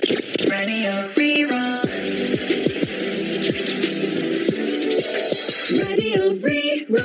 Radio Rí-Rá. Radio Rí-Rá.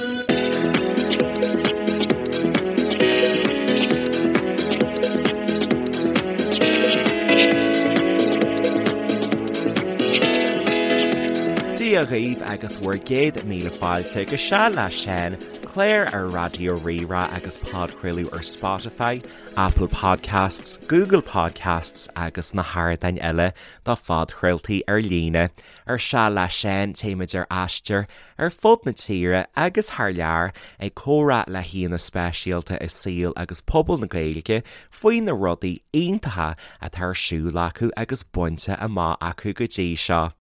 Dia dhaoibh agus bhur gcéad míle fáilte go Seal le Seán, clár ar Raidió Rí-Rá agus podchraoladh ar Spotify, Apple Podcasts, Google Podcasts agus na hardáin eile do phodchraoltaí ar líne. Ar Seal le Seán téimid ar aistear ar fud na tíre agus thar lear ag comhrá le haíonna speisialta i saol agus pobal na Gaeilge faoi na rudaí iontacha atá ar siúl acu agus bainte amach acu go dtí seo.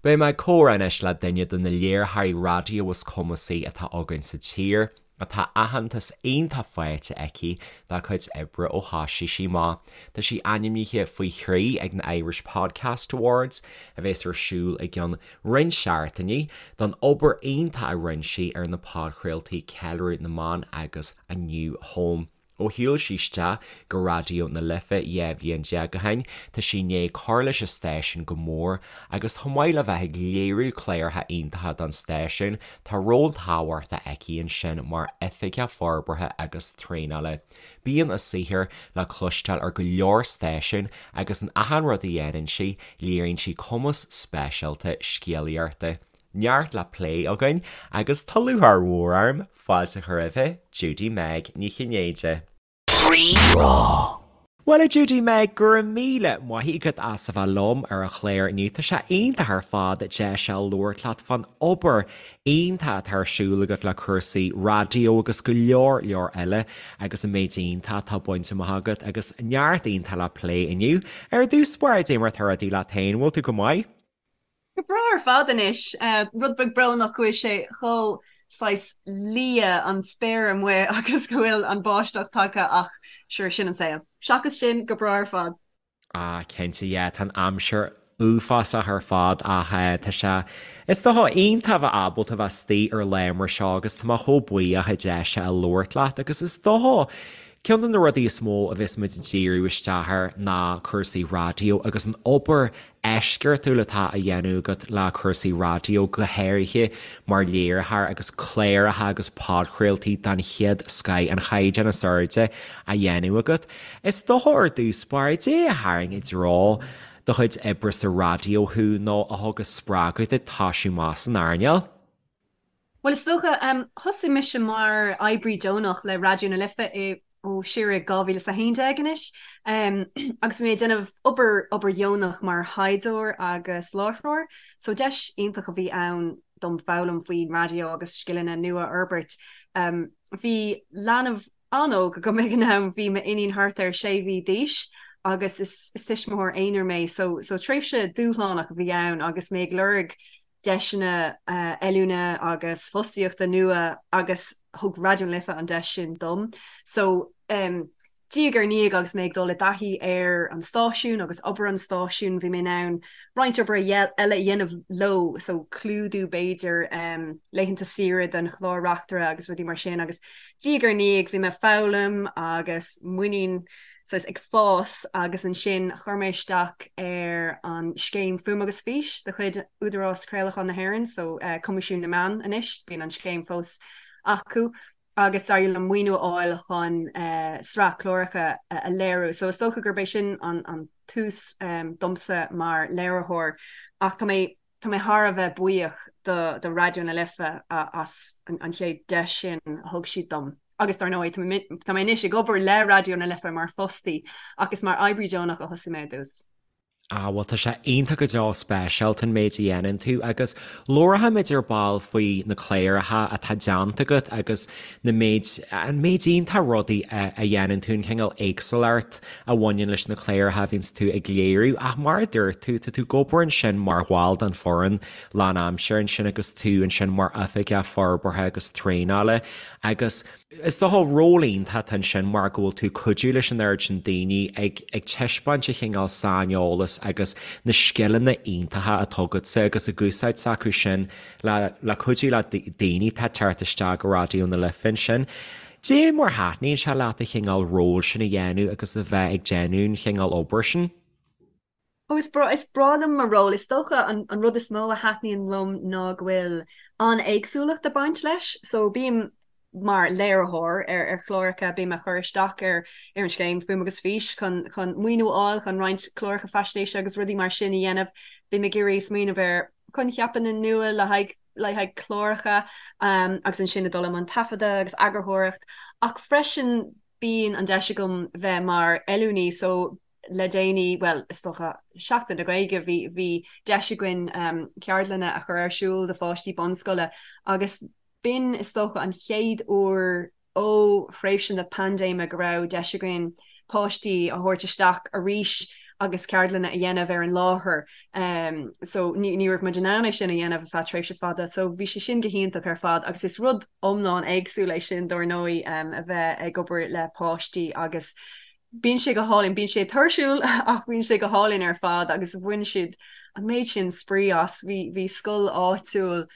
Beidh mé ag comhrá anois le duine de na léiritheoirí raidió is cumasaí atá againn sa tír, atá aitheantas iontach faighte aici dá cuid oibre ó thoisigh sí amach. Tá sí ainmnithe faoi thrí ag na Irish Podcast Awards, a bheas ar siúl i gceann roinnt seachtainí, don obair iontach a rinne sí ar na podchraoltaí Ceiliúradh na mBan agus A New Home. Ó shiúil sí isteach go Raidió na Life 12 bhliain ó shin, tá sí i ndiaidh cur leis an stáisiún go mór agus chomh maith le bheith ag léiriú cláracha iontacha don stáisiún, tá ról tábhachtach aici ansin mar Oifigeach Forbartha agus Traenála. Bíonn a saothar le cloisteáil ar go leor stáisiún agus in achan rud a dhéanann sí, léiríonn sí cumas speisialta scéalaíochta. Neart le plé againn agus tá lúcháir mhór orm fáilte a chur roimhe, Judy Meg Ní Chinnéide. Rí-Rá. Bhuel a Judy Meg, go raibh míle maith agat as a bheith liom ar an chlár inniu. Tá sé iontach ar fad deis a labhairt leat fán obair iontach atá ar siúl agat le cúrsaí raidió agus go leor leor eile agus an méid iontach atá bainte amach agat agus neart iontach le plé inniu. Ar dtús báire, cad é mar atá rudaí leat féin, bhfuil tú go maith? Go breá ar fad anois. Rud beag brónach go bhfuil sé chomh saghas liath an spéir amuigh agus go bhfuil an báisteach tagtha ach sure, sin an saol. Seachas sin, go breá ar fad. Ah, cinnte, yeah, tá an aimsir uafásach ar fad ach tá sé, is dócha, iontach a bheith ábalta bheith istigh ar lá mar seo agus tá mé chomh buíoch an deis a labhairt leat agus is dócha, ceann de na rudaí is mó a bheas muid ag díriú isteach air ná cúrsaí raidió agus an obair eisceachtúil atá á dhéanamh agat le cúrsaí raidió, go háirithe mar léiritheoir agus cláracha agus podchraoltaí den chéad scoth, an chaighdeán is airde á dhéanamh agat. Is dócha ar dtús báire, cad é a tharraing i dtreo do chuid oibre sa raidió thú nó a thug an spreagadh duit toisiú amach san earnáil? Bhuel, is dócha, thosaigh mise mar oibrí deonach le Raidió na Life i, ó, siar i 2011 anois, agus bhí mé ag déanamh obair, obair dheonach mar thaighdeoir agus láithreoir, so deis iontach a bhí ann dom foghlaim faoin raidió agus scileanna nua a fhorbairt. Bhí leanbh an-óg agam ag an am, bhí m'iníon thart ar sé mhí d'aois agus is, is tuismitheoir aonair mé, so, so tréimhse dúshlánach a bhí ann agus mé ag lorg deiseanna oiliúna agus fostaíochta nua agus thug Raidió na Life an deis sin dom. So diaidh ar ndiaidh agus mé ag dul i dtaithí ar an stáisiún agus obair an stáisiúin bhí mé in ann roinnt obair eile a dhéanamh leo, so clúdú b'fhéidir laethanta saoire don chlár reachtaire agus rudaí mar sin agus diaidh ar ndiaidh bhí mé ag foghlaim agus muinín saghas ag fás agus ansin chuir mé isteach ar an scéim Fuaim agus Fís de chuid Údarás Craolacháin na hÉireann, so Coimisiún na Meán anois, bíonn an scéim fós acu, agus d'éirigh liom maoiniú a fháil chun sraith cláracha a léiriú. So is dócha gurb é sin an tús domsa mar léiritheoir ach tá mé tá mé thar a bheith buíoch do do Raidió na Life as an chéad deis sin a thug siad dom. Agus dar ndóigh, tá mé anois ag obair le Raidió na Life mar fostaí ach is mar oibrí deonach a thosaigh mé i dtús. Ah, bhuel tá sé iontach go deo speisialta an méid a dhéanann tú agus labharfaimid ar ball faoi na cláracha atá déanta agat agus na méid, an méid iontach rudaí a dhéanann tú, an cineál éagsúlacht a bhaineann leis na cláracha a bhíonns tú ag léiriú ach mar a dúirt tú, tá tú ag obair ansin mar bhall den foireann lánaimseartha ansin agus tú ansin mar oifigeach forbartha agus traenála agus is dócha ról iontach atá ansin mar go bhfuil tú ag cuidiú leis an oiread sin daoine ag ag taispeáint an chineál saineolas agus na scileanna iontacha atá agatsa agus ag úsáid s'acu sin le le cuidiú le daoine atá ag teacht isteach go Raidió na Life ansin. Cad é mar thaitníonn sé leat an chineál ról sin a dhéanamh agus a bheith ag déanamh an chineál obair sin? Ó is breá, is breá liom mo ról. Is dócha an an rud is mó a thaitníonn liom ná go bhfuil an-éagsúlacht ag baint leis. So bím mar léiritheoir ar ar chláracha, bím ag cur isteach ar ar an scéim Fuaim agus Fís chun chun maoiniú a fháil chun roinnt cláracha faisnéise agus rudaí mar sin a dhéanamh. Bím ag iarraidh smaoineamh ar choincheapanna nua le haghaidh le haghaidh cláracha agus ansin ag dul i mbun taifeadadh agus eagarthóireacht ach freisin bíonn an deis agam bheith mar oiliúnaí so le déanaí, bhuel is dócha Seachtain na Gaeilge bhí bhí deis againn ceardlanna a chur ar siúl do pháistí bunscoile agus b'in is dócha an chéad uair ó thréimhse na paindéime go raibh deis againn páistí a thabhairt isteach arís agus ceardlanna a dhéanamh ar an láthair. So ní ní raibh muid in ann é sin a dhéanamh ar feadh tréimhse fada. So bhí sé sin go hiontach ar fad agus is rud iomlán éagsúil é sin dár ndóigh a bheith ag obair le páistí agus bíonn sé go hálainn, bíonn sé tuirsiúil ach bíonn sé go hálainn ar fad agus bhain siad an méid sin spraoi as. Bhí bhí scoil áitiúil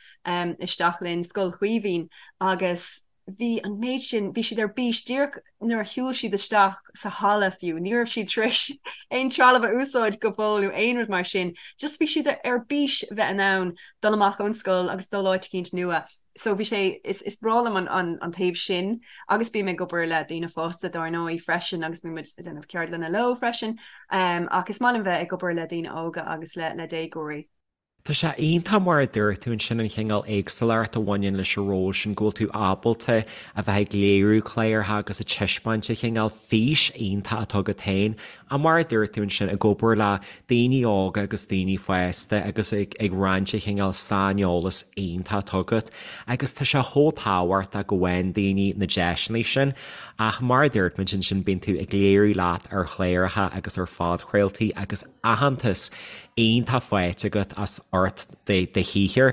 isteach linn, Scoil Chaoimhín agus bhí an méid sin, bhí siad ar bís díreach nuair a shiúil siad isteach sa halla fiú, ní raibh siad tar éis aon trealamh a úsáid go fóill nó aon rud mar sin, just bhí siad ar bís bheith in ann dul amach ón scoil agus dul áit eicínt nua. So bhí sé, is is breá liom an an an taobh sin agus bím ag obair le daoine fásta dár ndóigh freisin agus bíonn muid ag déanamh ceardlanna leo freisin ach is maith liom bheith ag obair le daoine óga agus le le déagóirí. Tá sé iontach mar a dúirt tú ansin an chineál éagsúlacht a bhaineann leis an ról sin, go bhfuil tú ábalta a bheith ag léiriú cláracha agus ag taispeáint an chineál fís iontach atá agat féin ach mar a dúirt tú ansin ag obair le daoine óga agus daoine fásta agus ag ag roinnt an chineál saineolas iontach atá agat agus tá sé chomh tábhachtach go bhfaigheann daoine na deiseanna sin ach mar a dúirt muid ansin bíonn tú ag léiriú leat ar chláracha agus ar phodchraoltaí agus aitheantas iontach faighte agat as ucht do shaothair.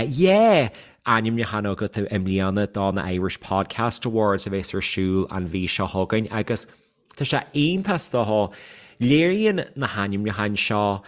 Yeah! Ainmniúchán agat i mbliana do na Irish Podcast Awards a bheas ar siúl an mhí seo chugainn agus tá sé iontach is dócha. Léiríonn na hainmniúcháin seo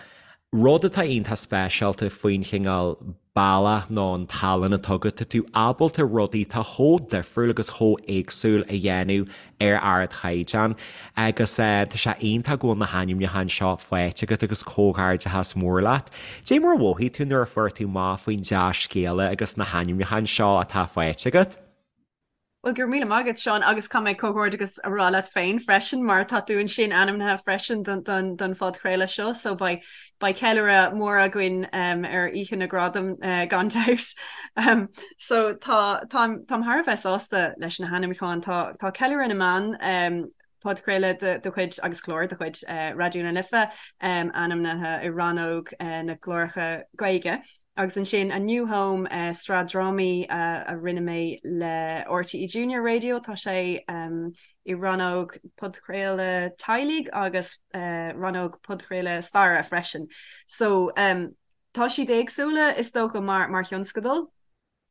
rud atá iontach speisialta faoin chineál bealach nó an tallann atá agat, tá tú ábalta rudaí atá chomh difriúil agus chomh éagsúil a dhéanamh ar ardchaighdeán agus tá sé iontach go bhfuil na hainmniúcháin seo faighte agat agus comhghairdeachas mór leat. Dé mar a mhothaigh tú nuair a fuair tú amach faoin dea-scéala agus na hainmniúcháin seo atá faighte agat? Bhuel, go raibh míle maith agat, Seán, agus caithfidh mé comhghairdeachas a rá leat féin freisin, mar tá tú ansin ainmnithe freisin don, don, don phodchraoladh seo, so beidh, beidh ceiliúradh mór againn um, ar Oíche na Gradam uh, gan dabht. Um, so tá, táim, táim thar a bheith sásta leis na hainmniúcháin. Tá, tá Ceiliúradh na mBan um, podchraoladh de, de chuid agus clár de chuid uh, Raidió na Life um, ainmnithe i rannóg uh, na gcláracha Gaeilge. Agus ansin A New Home, sraith drámaí a rinne mé le RTÉ Junior Radio, tá sé i rannóg podchraoladh teaghlaigh agus rannóg podchraoladh staire freisin. So tá siad éagsúla is dócha mar mar thionscadal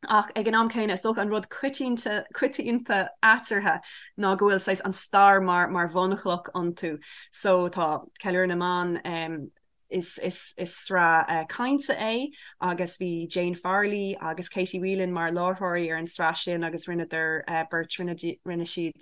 ach ag an am céanna is dócha an rud coitianta coitianta eatarthu ná go bhfuil saghas an stair mar mar bhunchloch iontu. So tá Ceiliúradh na mBan Is sraith cainte é agus bhí Jane Farrelly agus Katie Whelan mar láithreoirí ar an sraith sin agus rinneadar beirt, rinne siad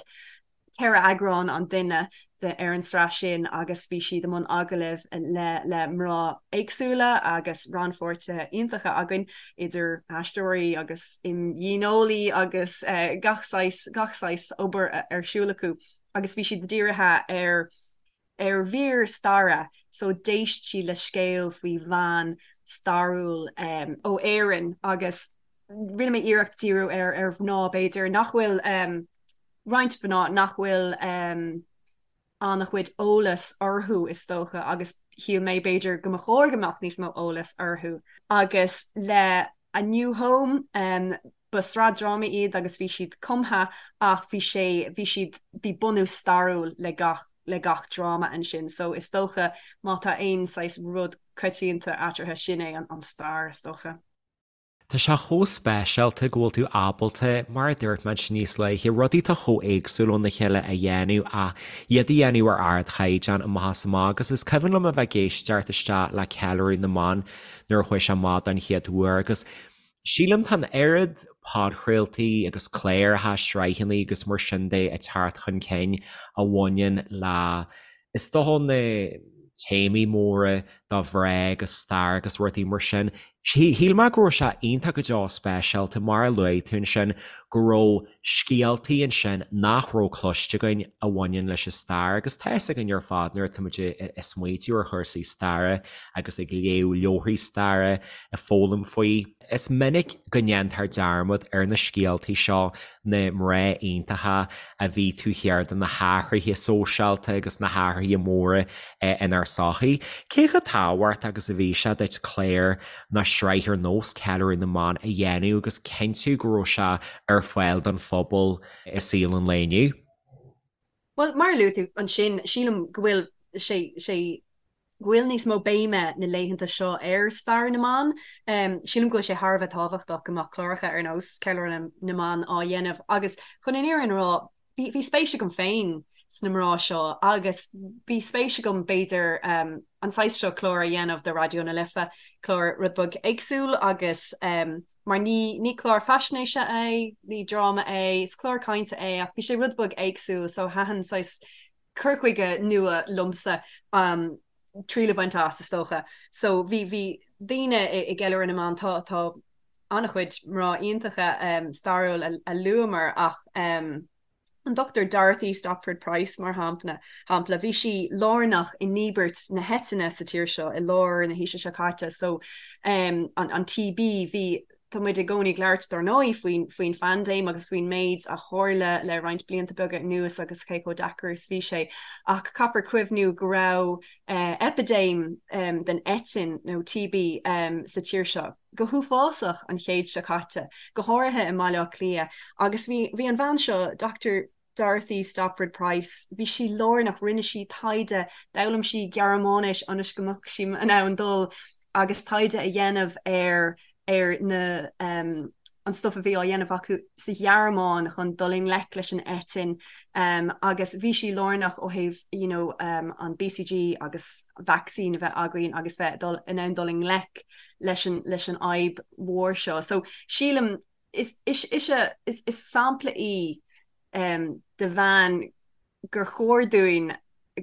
4 eagrán an duine ar an sraith sin agus bhí siad i mbun agallaimh le le mná éagsúla agus rannpháirtithe iontacha againn idir aisteoirí agus imdhíoneolaí agus gach saghas gach saghas obair ar siúl acu agus bhí siad dírithe ar ar mhír staire so d'éist siad le scéal faoi bhean stairiúil ó Éirinn agus rinne mé iarracht díriú ar ar mhná b'fhéidir nach bhfuil roinnt mhná nach bhfuil an-chuid eolas orthu is dócha agus shíl mé b'fhéidir go mba chóir go mbeadh níos mó eolas orthu agus le A New Home Ba sraith drámaí iad agus bhí siad cumtha ach bhí sé, bhí siad, bhí bunús stairiúil le gach, le gach dráma ansin. So is dócha má tá aon saghas rud coitianta eatarthu sin é an stair is dócha. Tá sé chomh speisialta go bhfuil tú ábalta, mar a dúirt muid níos luaithe, rudaí atá chomh éagsúil óna chéile a dhéanamh ach iad a dhéanamh ar ardchaighdeán amach is amach agus is cuimhin liom a bheith ag éisteacht isteach le Ceiliúradh na mBan nuair a chuaigh sé amach don chéad uair agus Sílim tá an oiread podchraoltaí agus cláracha, sraitheanna agus mar sin de ag teacht chun cinn a bhaineann le, is dócha, na. téamaí móra do mhná agus stair agus rudaí mar sin. Shíl mé go raibh sé iontach go deo speisialta, mar a luaigh tú ansin, go raibh scéaltaí ansin nach raibh cloiste againn a bhaineann leis an stair agus tá fhios againn ar fad nuair atá muid ag smaoitiú ar chúrsaí staire agus ag léamh leabharthaí staire, ag foghlaim faoi. Is minic go ndéantar dearmad ar na scéaltaí seo, na mná iontacha a bhí taobh thiar de na hathruithe sóisialta agus na hathruithe móra inár sochaí. Cé chomh tábhachtach agus a bhí sé duit clár nó sraith ar nós Ceiliúradh na mBan a dhéanamh agus cinntiú go raibh sé ar fáil don phobal i saol an lae inniu? Bhuel, mar a luaigh tú ansin, sílim go bhfuil sé sé go bhfuil níos mó béime na laethanta seo ar stair na mban. Sílim go bhfuil sé thar a bheith tábhachtach go mbeadh cláracha ar nós Ceiliúradh na mBan á dhéanamh agus chun an fhírinne a rá, bhí bhí spéis agam féin sna mná seo agus bhí spéis agam b'fhéidir an saghas seo clár a dhéanamh do Raidió na Life, clár rud beag éagsúil agus mar ní ní clár faisnéise é, ní dráma é, is clár cainte é ach bhí sé rud beag éagsúil so thaitin saghas cur chuige nua liomsa triail a bhaint as, is dócha. So bhí, bhí daoine i gCeiliúradh na mBan, tá, tá an-chuid mná iontacha stairiúil a luamar ach an Dr Dorothy Stopford Price mar shampla, shampla, bhí sí lárnach i ndíbirt na heitinne sa tír seo i lár na haoise seo caite so an, an TB, bhí Tá muid i gcónaí ag labhairt, dár ndóigh, faoin faoin phaindéim agus faoin méid a tharla le roinnt blianta beaga anuas agus cé chomh deacair is bhí sé. Ach caithfear cuimhniú go raibh eipidéim den eitinn, nó TB, sa tír seo go huafásach an chéad seo caite, go háirithe i mBaile Átha Cliath. Agus bhí bhí an bhean seo, Dr. Dorothy Stopford Price, bhí sí lárnach, rinne sí taighde, d'fhoghlaim sí Gearmáinis ionas go mbeadh sí in ann dul agus taighde a dhéanamh ar ar na an stuif a bhí á dhéanamh acu sa Ghearmáin chun dul i ngleic leis an eitinn agus bhí sí lárnach ó thaobh you know an BCG agus vacsaín a bheith againn agus bheith dul in ann dul i ngleic leis an leis an fhadhb mhór seo. So sílim is ise is sampla í de bhean gur chóir dúinn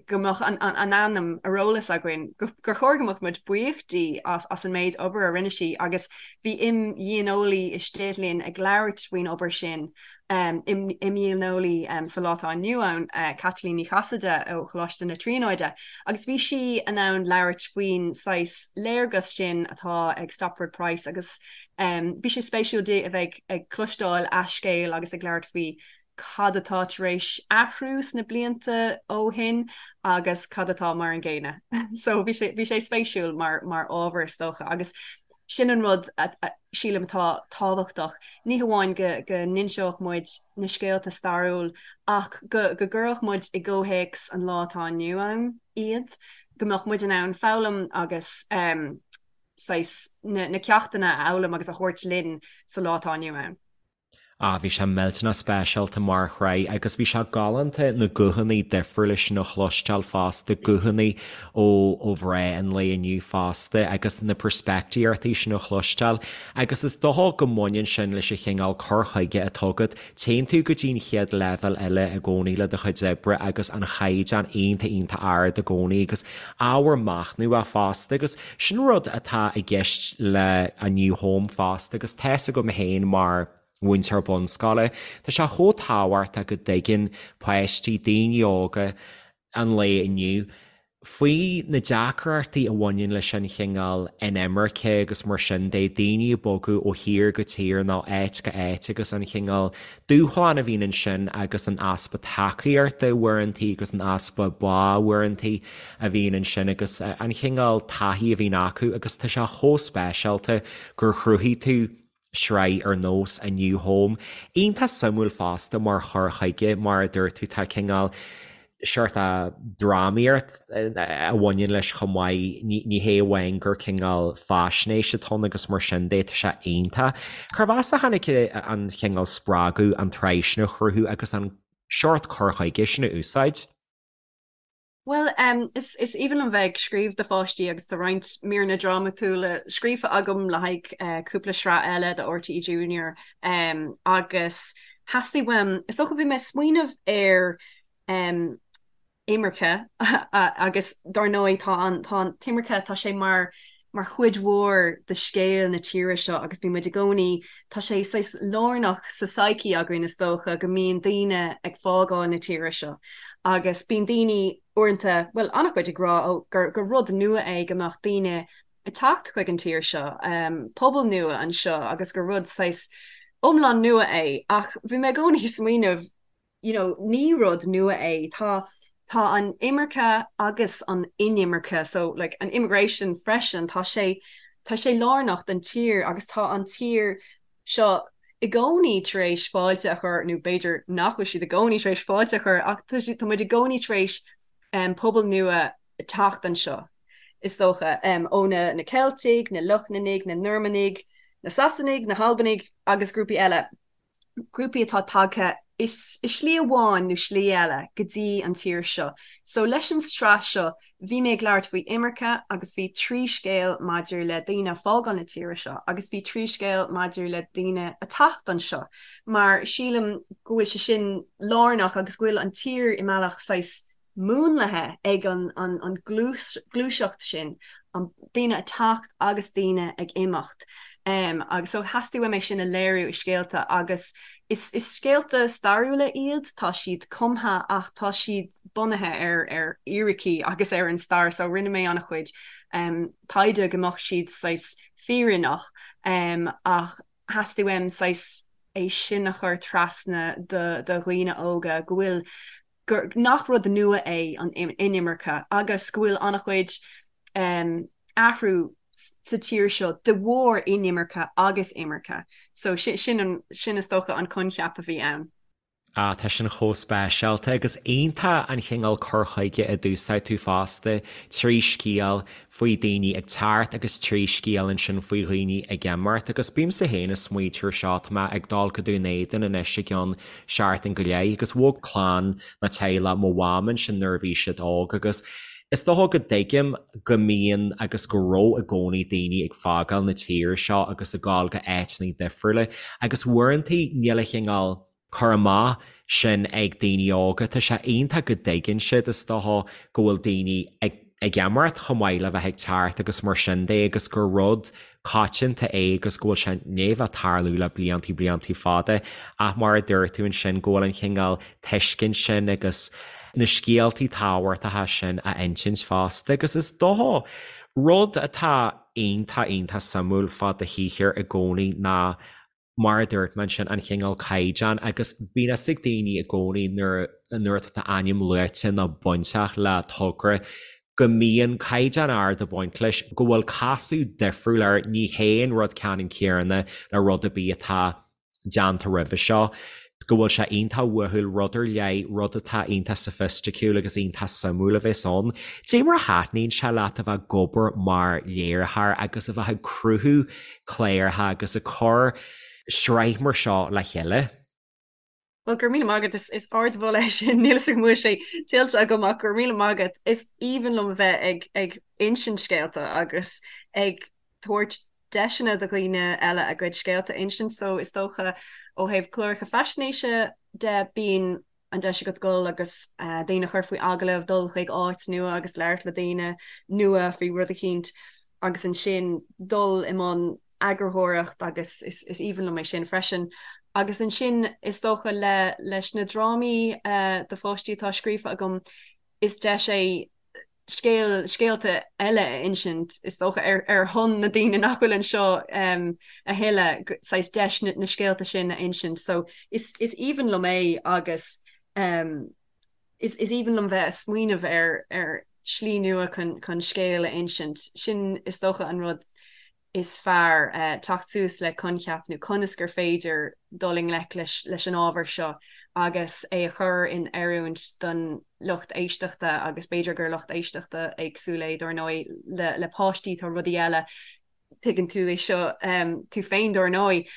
go mbeadh a hainm ar eolas againn, gur chóir go mbeadh muid buíoch di as an méid obair a rinne sí agus bhí imdhíoneolaí istigh linn ag labhairt faoin obair sin, imdhíoneolaí sa lá atá inniu ann, Caitlín Ní Chasaide ó Choláiste na Tríonóide, agus bhí sí in ann labhairt faoin saghas léargas sin atá ag Stopford Price agus Bhí sé spéisiúil di a bheith ag cloisteáil a scéal agus ag labhairt faoi cad atá tar éis athrú sna blianta ó shin agus cad atá mar an gcéanna. So bhí sé bhí sé spéisiúil mar mar ábhar is dócha agus sin an rud a sílim atá tábhachtach. Ní hamháin go go n-inseodh muid na scéalta stairiúil ach go go gcuirfeadh muid i gcomhthéacs an lá atá inniu ann iad, go mbeadh muid in ann foghlaim agus saghas na ceachtanna a fhoghlaim agus a thabhairt linn sa lá atá inniu ann. Ah, bhí sé millteanach speisialta mar shraith agus bhí sé galánta na guthanna difriúla sin a chloisteáil fosta, guthanna ó ó mhná an lae inniu fosta agus na peirspictíochtaí sin a chloisteáil agus is dócha go mbaineann sin leis an chineál cur chuige atá agat Téann tú go dtí an chéad leibhéal eile i gcónaí le do chuid oibre agus an chaighdeán iontach iontach ard i gcónaí agus ábhar machnamh fosta agus sin rud atá i gceist le A New Home fosta agus tá fhios agam féin mar mhúinteoir bunscoile, tá sé chomh tábhachtach go dtuigeann páistí, daoine óga an lae inniu, faoi na deacrachtaí a bhaineann leis an chineál inimirce agus mar sin de, daoine ag bogadh ó thír go tír nó áit go áit agus an chineál dúshlán a bhíonn ansin agus an easpa tacaíochta uaireantaí agus an easpa bá uaireantaí a bhíonn ansin agus an chineál taithí a bhíonn acu agus tá sé chomh speisialta gur chruthaigh tú sraith ar nós A New Home. Iontach suimiúil fosta mar chur chuige, mar a dúirt tú, tá cineál seort drámaíocht a bhaineann leis chomh maith, ní hé amháin gur cineál faisnéis atá ann agus mar sin de, tá sé iontach. Cérbh as a tháinig an cineál spreagadh an tsraith sin a chruthú agus an seort cur chuige sin a úsáid? Bhuel, is is aoibhinn liom bheith ag scríobh do pháistí agus tá roinnt míreanna drámatúla scríofa agam le haghaidh cúpla sraith eile do RTÉ Junior agus theastaigh uaim, is dócha bhí mé ag smaoineamh ar. Imirce agus dár ndóigh tá an tá an t-imirce tá sé mar mar chuid mhór de scéal na tíre seo agus bíonn muid i gcónaí tá sé saghas lárnach sa psyche againn is dócha go mbíonn daoine ag fágáil na tíre seo agus bíonn daoine uaireanta bhuel an-chuid ag rá ó gur gur rud nua é go mbeadh daoine ag teacht chuig an tír seo pobal nua anseo agus gur rud saghas iomlán nua é ach bhí mé i gcónaí ag smaoineamh you know, ní rud nua é. Tá, tá an imirce agus an inimirce, so like an immigration freisin, tá sé, tá sé lárnach don tír agus tá an tír seo i gcónaí tar éis fáilte a chur, nó b'fhéidir nach bhfuil siad i gcónaí tar éis fáilte a chur, ach tá siad, tá muid i gcónaí tar éis um, pobal nua teacht anseo, is dócha, um, ó na, na Ceiltigh, na Lochlannaigh, na Normannaigh, na Sasanaigh, na hAlbanaigh agus grúpaí eile. grúpaí atá tagtha i slí amháin nó slí eile go dtí an tír seo. So leis an sraith seo bhí mé ag labhairt faoi imirce agus bhí trí scéal maidir le daoine ag fágáil na tíre seo agus bhí trí scéal maidir le daoine ag teacht anseo mar sílim go bhfuil sé sin lárnach agus go bhfuil an tír i mbealach saghas múnlaithe ag an gluaiseacht sin, an daoine ag teacht agus daoine ag imeacht. Agus so theastaigh uaim é sin a léiriú i scéalta agus is scéalta stairiúla iad, tá siad cumtha ach tá siad bunaithe ar ar fhíricí agus ar an stair so rinne mé an-chuid taighde go mbeadh siad saghas fírinneach ach theastaigh uaim saghas é sin a chur trasna do dhaoine óga go bhfuil gur nach rud nua é an inimirce agus go bhfuil an-chuid athrú sa tír seo de bharr inimirce agus imirce. So sin an, sin is dócha an coincheap a bhí ann. Ah, tá sin chomh speisialta agus iontach an chineál cur chuige a d'úsáid tú fosta, trí scéal faoi daoine ag teacht agus trí scéal ansin faoi dhaoine ag imeacht agus bímse féin ag smaointiú ar seo, tá mé ag dul go Dún Éideann anois i gceann seachtain go leith agus bhog clann nó teaghlach mo mham ansin nuair a bhí siad óg agus is dócha go dtuigim go mbíonn agus go raibh i gcónaí daoine ag fágáil na tíre seo agus ag gabháil go áiteanna difriúla agus uaireanta níl an chineál cur amach sin ag daoine óga. Tá sé iontach go dtuigeann siad is dócha go bhfuil daoine ag ag imeacht chomh maith le bheith ag teacht agus mar sin de agus gur rud coitianta é agus go bhfuil sé i ndiaidh bheith ag tarlú le bliantaí bliantaí fada ach mar a dúirt tú ansin go bhfuil an chineál tuiscint sin agus na scéaltaí tábhachtacha sin a insint fosta agus is dócha rud atá iontach iontach suimiúil fá do shaothar i gcónaí ná mar a dúirt mé ansin, an chineál caighdeán agus bíonn fhios ag daoine i gcónaí nuair nuair atá d'ainm luaite nó bainteach le togra go mbíonn caighdeán ard ag baint leis, go bhfuil casadh difriúil air, ní hé an rud ceannann céanna le rud ar bith atá déanta roimhe seo, go bhfuil sé iontach uathúil, rud ar leith, rud atá iontach soifisticiúil agus iontach suimiúil a bheas ann. Cad é mar a thaitníonn sé leat a bheith ag obair mar léiritheoir agus a bheith ag cruthú cláracha agus ag cur sraith mar seo le chéile. Bhuel, go raibh míle maith agat, is ardmholadh é sin, níl fhios agam an bhfuil sé tuillte agam ach go raibh míle maith agat. Is aoibhinn liom a bheith ag ag insint scéalta agus ag tabhairt deiseanna do dhaoine eile a gcuid scéalta a insint so is dócha ó thaobh cláracha faisnéise de bíonn an deis agat dul agus daoine a chur faoi agallamh, dul chuig áit nua agus labhairt le daoine nua faoi rud eicínt agus ansin dul i mbun eagarthóireacht agus is aoibhinn liom é sin freisin. Agus ansin is dócha le leis na drámaí do pháistí atá scríofa agam is deis é scéal, scéalta eile a insint, is dócha, ar ar shon na daoine nach bhfuil anseo a thuilleadh, saghas deis na na scéalta sin a insint. So is is aoibhinn liom é agus is is aoibhinn liom bheith ag smaoineamh ar ar shlí nua chun chun scéal a insint. Sin is dócha an rud is fearr teacht suas le coincheap nó conas gur féidir dul i ngleic leis an ábhar seo agus é a chur in oiriúint don lucht éisteachta agus b'fhéidir gur lucht éisteachta éagsúil é dár ndóigh le páistí tá rudaí eile tuigeann tú é seo tú féin dár ndóigh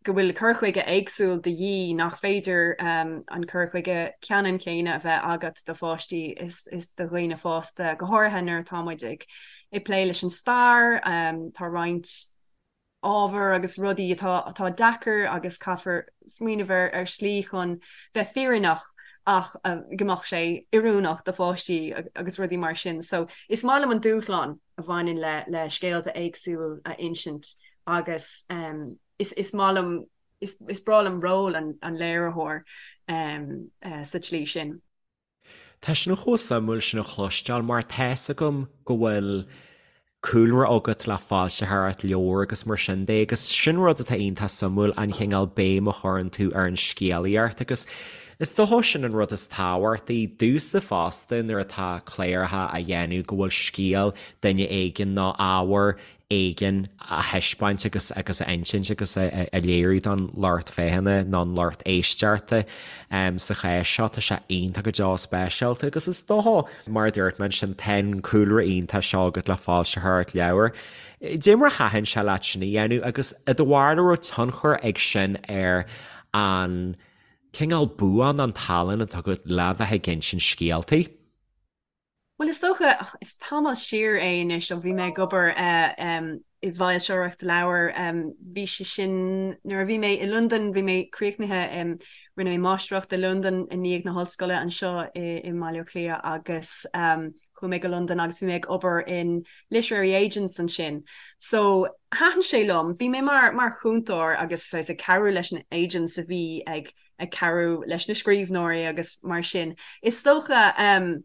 go bhfuil cur chuige éagsúil de dhíth, nach féidir an cur chuige ceannann céanna a bheith agat do pháistí is do dhaoine fásta, go háirithe nuair atá muid ag ag plé leis an stair, tá roinnt ábhar agus rudaí atá atá deacair agus caithfear smaoineamh ar ar slí chun bheith fírinneach. ach go mbeadh sé oiriúnach do pháistí agus rudaí mar sin. So is maith liom an dúshlán a bhaineann le le scéalta éagsúil a insint agus is is maith liom is is breá liom ról an an léiritheoir sa tslí sin. Tá sin chomh suimiúil sin a chloisteáil mar tá 'fhios agam go bhfuil cúlra agat le foilsitheoireacht leabhar agus mar sin de agus sin rud atá iontach suimiúil an chineál béim a chuireann tú ar an scéalaíocht agus is dócha sin an rud is tábhachtaí domhsa fosta nuair atá cláracha á dhéanamh go bhfuil scéal duine éigin nó ábhar éigin a thaispeáint agus agus a insint agus a léiriú don lucht féachana nó an lucht éisteachta. Sa chás seo tá sé iontach go deo speisialta agus is dócha, mar a dúirt mé ansin, tá an cúlra iontach seo agat le foilsitheoireacht leabhar. Dé mar a thaitin sé leat sin a dhéanamh agus i do bharúil an raibh tionchar ag sin ar an cineál bua nó an tallann atá agat le bheith ag insint scéaltaí? Bhuel, is dócha, is tamall siar é anois ó bhí mé ag obair i bhfoilsitheoireacht leabhar. Bhí sé sin nuair a bhí mé i Londain, bhí mé críochnaithe, rinne mé máistreacht i Londain i ndiaidh na hollscoile anseo i mBaile Átha Cliath agus chuaigh mé go Londain agus bhí mé ag obair in literary agents ansin. So thaitin sé liom, bhí mé mar mar chúntóir agus saghas ag cabhrú leis na agents a bhí ag ag cabhrú leis na scríbhneoirí agus mar sin. Is dócha,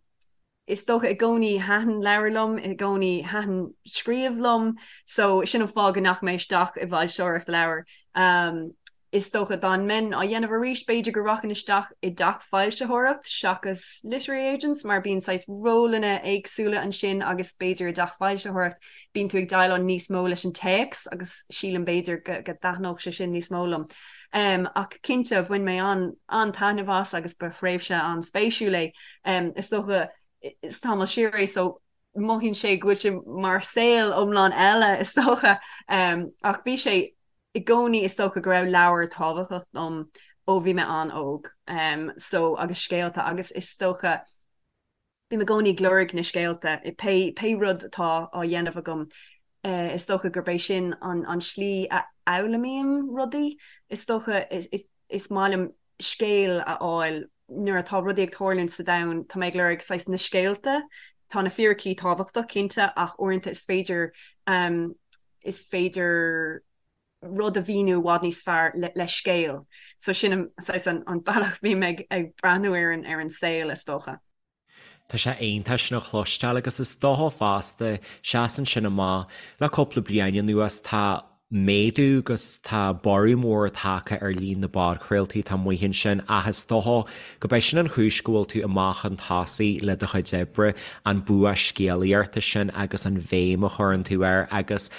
is dócha i gcónaí thaitin leabhair liom, i gcónaí thaitin scríobh liom, so sin an fáth go ndeachaigh mé isteach i bhfoilsitheoireacht leabhar. Is dócha dá mbeinn á dhéanamh arís, b'fhéidir go rachainn isteach i dteach foilsitheoireacht seachas literary agents mar bíonn saghas rólanna éagsúla ansin agus b'fhéidir i dteach foilsitheoireacht bíonn tú ag déileáil níos mó leis an téacs agus sílim b'fhéidir go dtaitneodh sé sin níos mó liom. Ach cinnte, bhain mé an-taitneamh as agus ba thréimhse an-spéisiúil é. Is dócha, is tamall siar é so mothaíonn sé go bhfuil sé mar saol iomlán eile is dócha. Ach bhí sé i gcónaí is dócha go raibh leabhair tábhachtach dom ó bhí mé an-óg. So agus scéalta agus is dócha, Bím i gcónaí ag lorg na scéalta i pé pé rud atá á dhéanamh agam. Is dócha gurb é sin an an slí a fhoghlaimím rudaí. Is dócha is maith liom scéal a fháil nuair atá rudaí ag tarlúint sa domhan, tá mé ag lorg saghas na scéalta. Tá na fíricí tábhachtach, cinnte, ach uaireanta is féidir is féidir rud a mhíniú i bhfad níos fearr le scéal. So sin an saghas an bealach a bhím ag breathnú ar an ar an saol is dócha. Tá sé iontach sin a chloisteáil agus is dócha fosta, seasann sin amach, le cúpla bliain anuas tá méadú agus tá borradh mór tagtha ar líon na bpodchraoltaí atá amuigh ansin ach is dócha go b'é sin an chúis go bhfuil tú amach chun tosaigh le do chuid oibre, an bua scéalaíochta sin agus an bhéim a chuireann tú air agus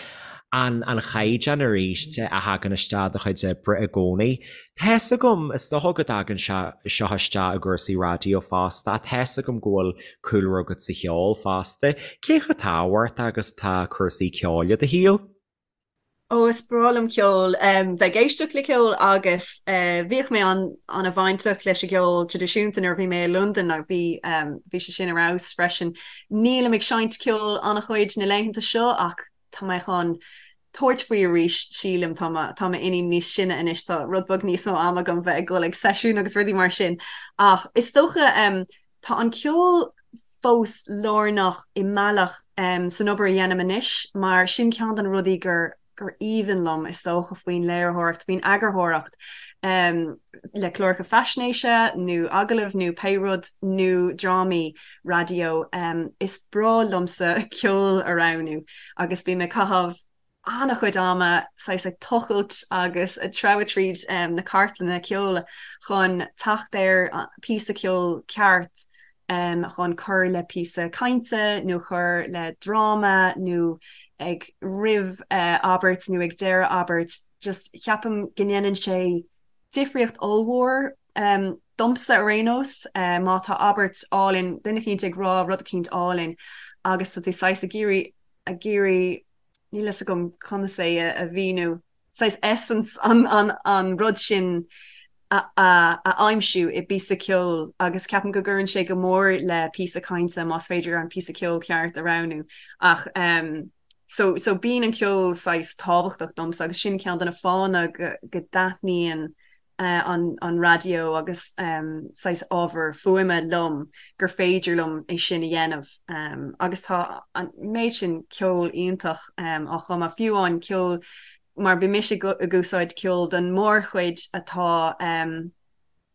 an an chaighdeán arís a thagann isteach i do chuid oibre i gcónaí. Tá 'fhios agam, is dócha go dtagann sé seo isteach i gcúrsaí raidió fosta, ach tá 'fhios agam go bhfuil cúlra agat sa cheol fosta. Cé chomh tábhachtach agus atá cúrsaí ceoil i do shaol? Ó, is breá liom ceol, bheith ag éisteacht le ceol agus bhíodh mé an-bhainteach leis an gceol traidisiúnta nuair a bhí mé i Londain agus bhí bhí sé sin ar fheabhas freisin. Nílim ag seinnt ceoil an-chuid na laethanta seo ach tá mé chun tabhairt faoi arís, sílim. Tá mo, tá m'iníon níos sine anois, tá rud beag níos mó ama agam bheith ag dul ag seisiúin agus rudaí mar sin. Ach is dócha, tá an ceol fós lárnach i mbealach san obair a dhéanaim anois mar sin ceann de na rudaí gur, gur aoibhinn liom, is dócha, faoin léiritheoireacht, faoin eagarthóireacht le cláracha faisnéise nó agallaimh nó pé rud nó drámaí raidió. Is breá liomsa ceol a roghnú agus bím ag caitheamh an-chuid ama saghas ag tochailt agus ag treabhadh tríd na cartlanna ceoil chun teacht ar píosa ceoil ceart chun cur le píosa cainte nó cur le dráma nó ag roimh abairt nó ag deireadh abairt. Just ceapaim go ndéanann sé difríocht ollmhór domsa ar aon nós má tá abairt álainn, duine eicínt ag rá rud eicínt álainn agus tá tú saghas ag iarraidh ag iarraidh níl fhios agam conas é a mhíniú, saghas essence an rud sin a aimsiú i bpíosa ceoil agus ceapaim go gcuireann sé go mór le píosa cainte más féidir an píosa ceoil ceart a roghnú. Ach so so bíonn an ceol saghas tábhachtach domsa agus sin ceann de na fáthanna go go dtaitníonn. an raidió agus saghas ábhar fuaime liom gur féidir liom é sin a dhéanamh agus tá an méid sin ceol iontach á chumadh, fiú amháin ceol mar bíonn mise ag úsáid ceol don mórchuid atá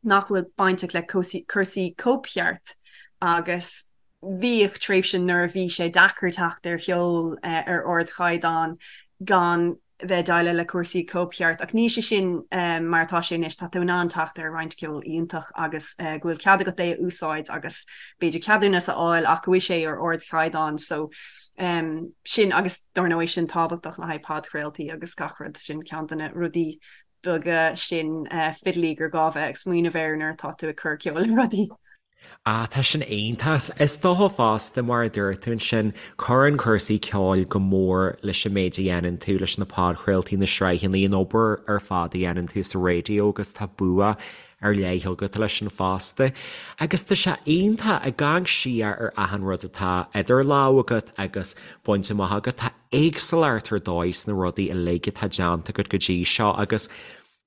nach bhfuil bainteach le cúrsaí cóipcheart agus bhíodh tréimhse nuair a bhí sé deacair teacht ar cheol ar ardchaighdeán gan bheith ag déileáil le cúrsaí cóipcheart ach níl sé sin mar atá sé anois, tá tú in ann teacht ar roinnt ceol iontach agus go bhfuil cead agat é a úsáid agus b'fhéidir ceadúnas a fháil ach go bhfuil sé ar ardchaighdeán so sin agus dar ndóigh sin tábhachtach le haghaidh podchraoltaí agus gach rud, sin ceann de na rudaí beaga sin fiddly gur gá bheith ag smaoineamh air nuair atá tú ag cur ceoil le rudaí. Ah, tá sin iontach. Is dócha fosta, mar a dúirt tú ansin, cuireann cúrsaí ceoil go mór leis an méid a dhéanann tú, leis na podchraoltaí, na sraitheanna, an obair ar fad a dhéanann tú sa raidió agus tá bua ar leith agat leis sin fosta. Agus tá sé iontach, ag amharc siar ar achan rud atá idir lámha agat agus bainte amach agat, tá éagsúlacht ar dóigh sna rudaí uilig atá déanta agat go dtí seo agus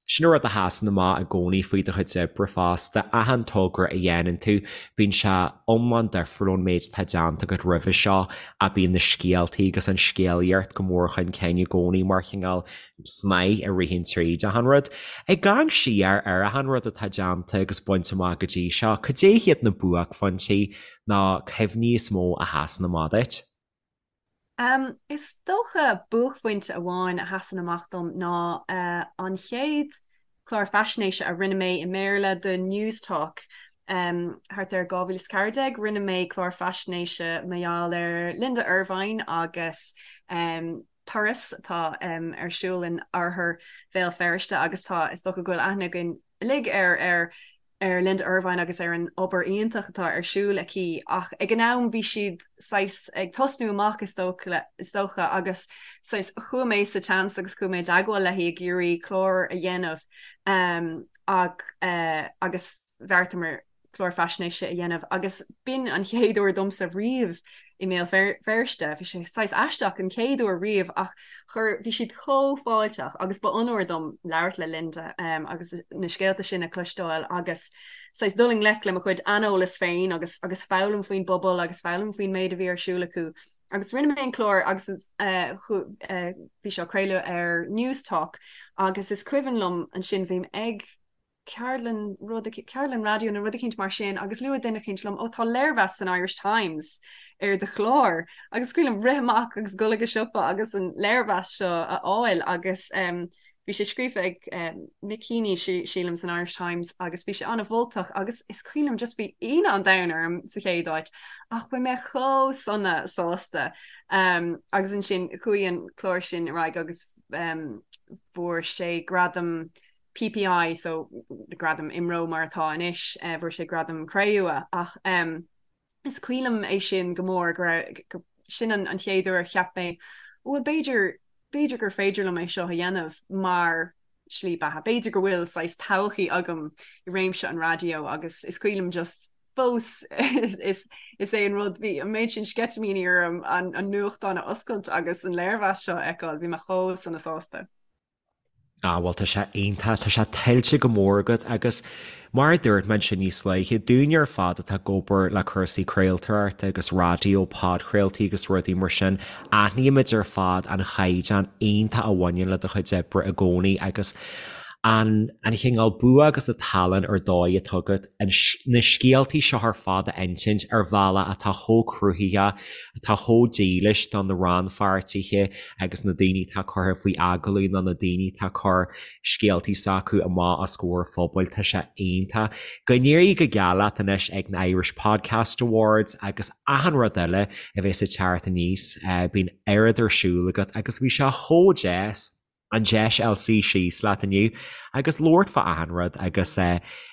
Sin an rud a sheasann amach i gcónaí faoi do chuid oibre fosta, achan togra a dhéanann tú, bíonn sé iomlán difriúil ón méid atá déanta agat roimhe seo ach bíonn na scéaltaí agus an scéalaíocht go mór chun cinn i gcónaí mar chineál snáith a ritheann tríd achan rud. Ag amharc siar ar achan rud atá déanta agus bainte amach go dtí seo, cad é hiad na buaicphointí nó cuimhní is mó a sheasann amach duit? Is dócha buaicphointe amháin a sheasann amach dom ná an chéad chlár faisnéise a rinne mé i mBéarla do Newstalk thart ar 2014. Rinne mé clár faisnéise mar gheall ar Linda Ervine agus turas atá ar siúl in oirthear Bhéal Feirste agus tá, is dócha go bhfuil aithne againn uilig ar ar ar Linda Ervine agus ar an obair iontach atá ar siúl aici ach ag an am bhí siad saghas ag tosnú amach is dócha is dócha agus saghas chuaigh mé sa tseans agus chuaigh mé i dteagmháil léi ag iarraidh clár a dhéanamh um, ag, uh, agus bheartaíomar clár faisnéise a dhéanamh agus b'in an chéad uair domsa riamh i mBéal Feirste. Bhí sé saghas aisteach an chéad uair riamh ach chuir, bhí siad chomh fáilteach agus ba onóir dom labhairt le Linda agus na scéalta sin a chloisteáil agus saghas dul i ngleic le mo chuid aineolas féin agus agus foghlaim faoin bpobal agus foghlaim faoin méid a bhí ar siúl acu. Agus rinne mé an clár agus bhí sé á craoladh ar Newstalk agus is cuimhin liom ansin bhí mé ag ceardlann rud ceardlann raidió nó rud eicínt mar sin agus luaigh duine eicínt liom ó tá léirmheas san Irish Times ar do chlár agus is cuimhin liom rith amach agus dul ag an siopa agus an léirmheas seo a fháil agus um, bhí sé scríofa ag um, Mick Heaney sílim san Irish Times agus bhí sé an-mholtach agus is cuimhin liom just bhí ionadh an domhain orm sa chéad áit ach bhí mé chomh sona sásta um, agus ansin chuaigh an clár sin ar aghaidh agus um, fuair sé gradam PPI, so gradam IMRO mar atá anois, fuair sé gradam cré-umha ach is cuimhin liom é sin go mór go raibh, sin an chéad uair a cheap mé bhuel b'fhéidir, b'fhéidir gur féidir liom é seo a dhéanamh mar shlí beatha, b'fhéidir go bhfuil saghas todhchaí agam i réimse an raidió agus is cuimhin liom just fós is is é an rud bhí an méid sin sceitimíní orm an nuachtán a oscailt agus an léirmheas seo a fheiceáil, bhí mé chomh sona sásta. Ah, bhuel, tá sé iontach, tá sé tuillte go mór agat agus mar a dúirt mé ansin níos luaithe, dúinne ar fad atá ag obair le cúrsaí craoltóireachta agus raidió, podchraoltaí agus rudaí mar sin, aithnímid ar fad an chaighdeán iontach a bhaineann le do chuid oibre i gcónaí agus an an chineál bua agus an tallann ar dóigh atá agat an na scéaltaí seo ar fad a insint ar bhealach atá chomh cruthaitheach, atá chomh dílis do na rannpháirtithe agus na daoine atá curtha faoi agallamh nó na daoine atá ag cur scéaltaí s'acu amach os comhair phobail, tá sé iontach. Go n-éirí go geal leat anois ag na Irish Podcast Awards agus achan rud eile a bheas ag teacht aníos, bíonn oiread ar siúl agat agus bhí sé chomh deas an deis a fháil suí síos leat inniu agus labhairt fá achan rud agus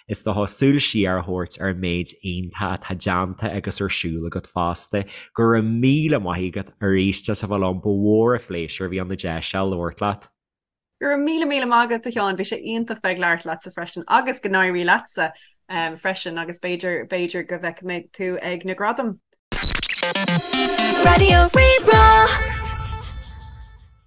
is dócha súil siar a thabhairt ar an méid iontach atá déanta agus ar siúl agat fosta. Go raibh míle maith agat arís as a bheith liom, ba mhór an phléisiúr a bhí ann an deis seo labhairt leat. Go raibh míle míle maith agat a Sheáin, bhí sé iontach bheith ag labhairt leatsa freisin agus go n-éirí leatsa freisin agus b'fhéidir b'fhéidir go bhfeicfidh mé tú ag na gradaim. Raidió Rí-Rá.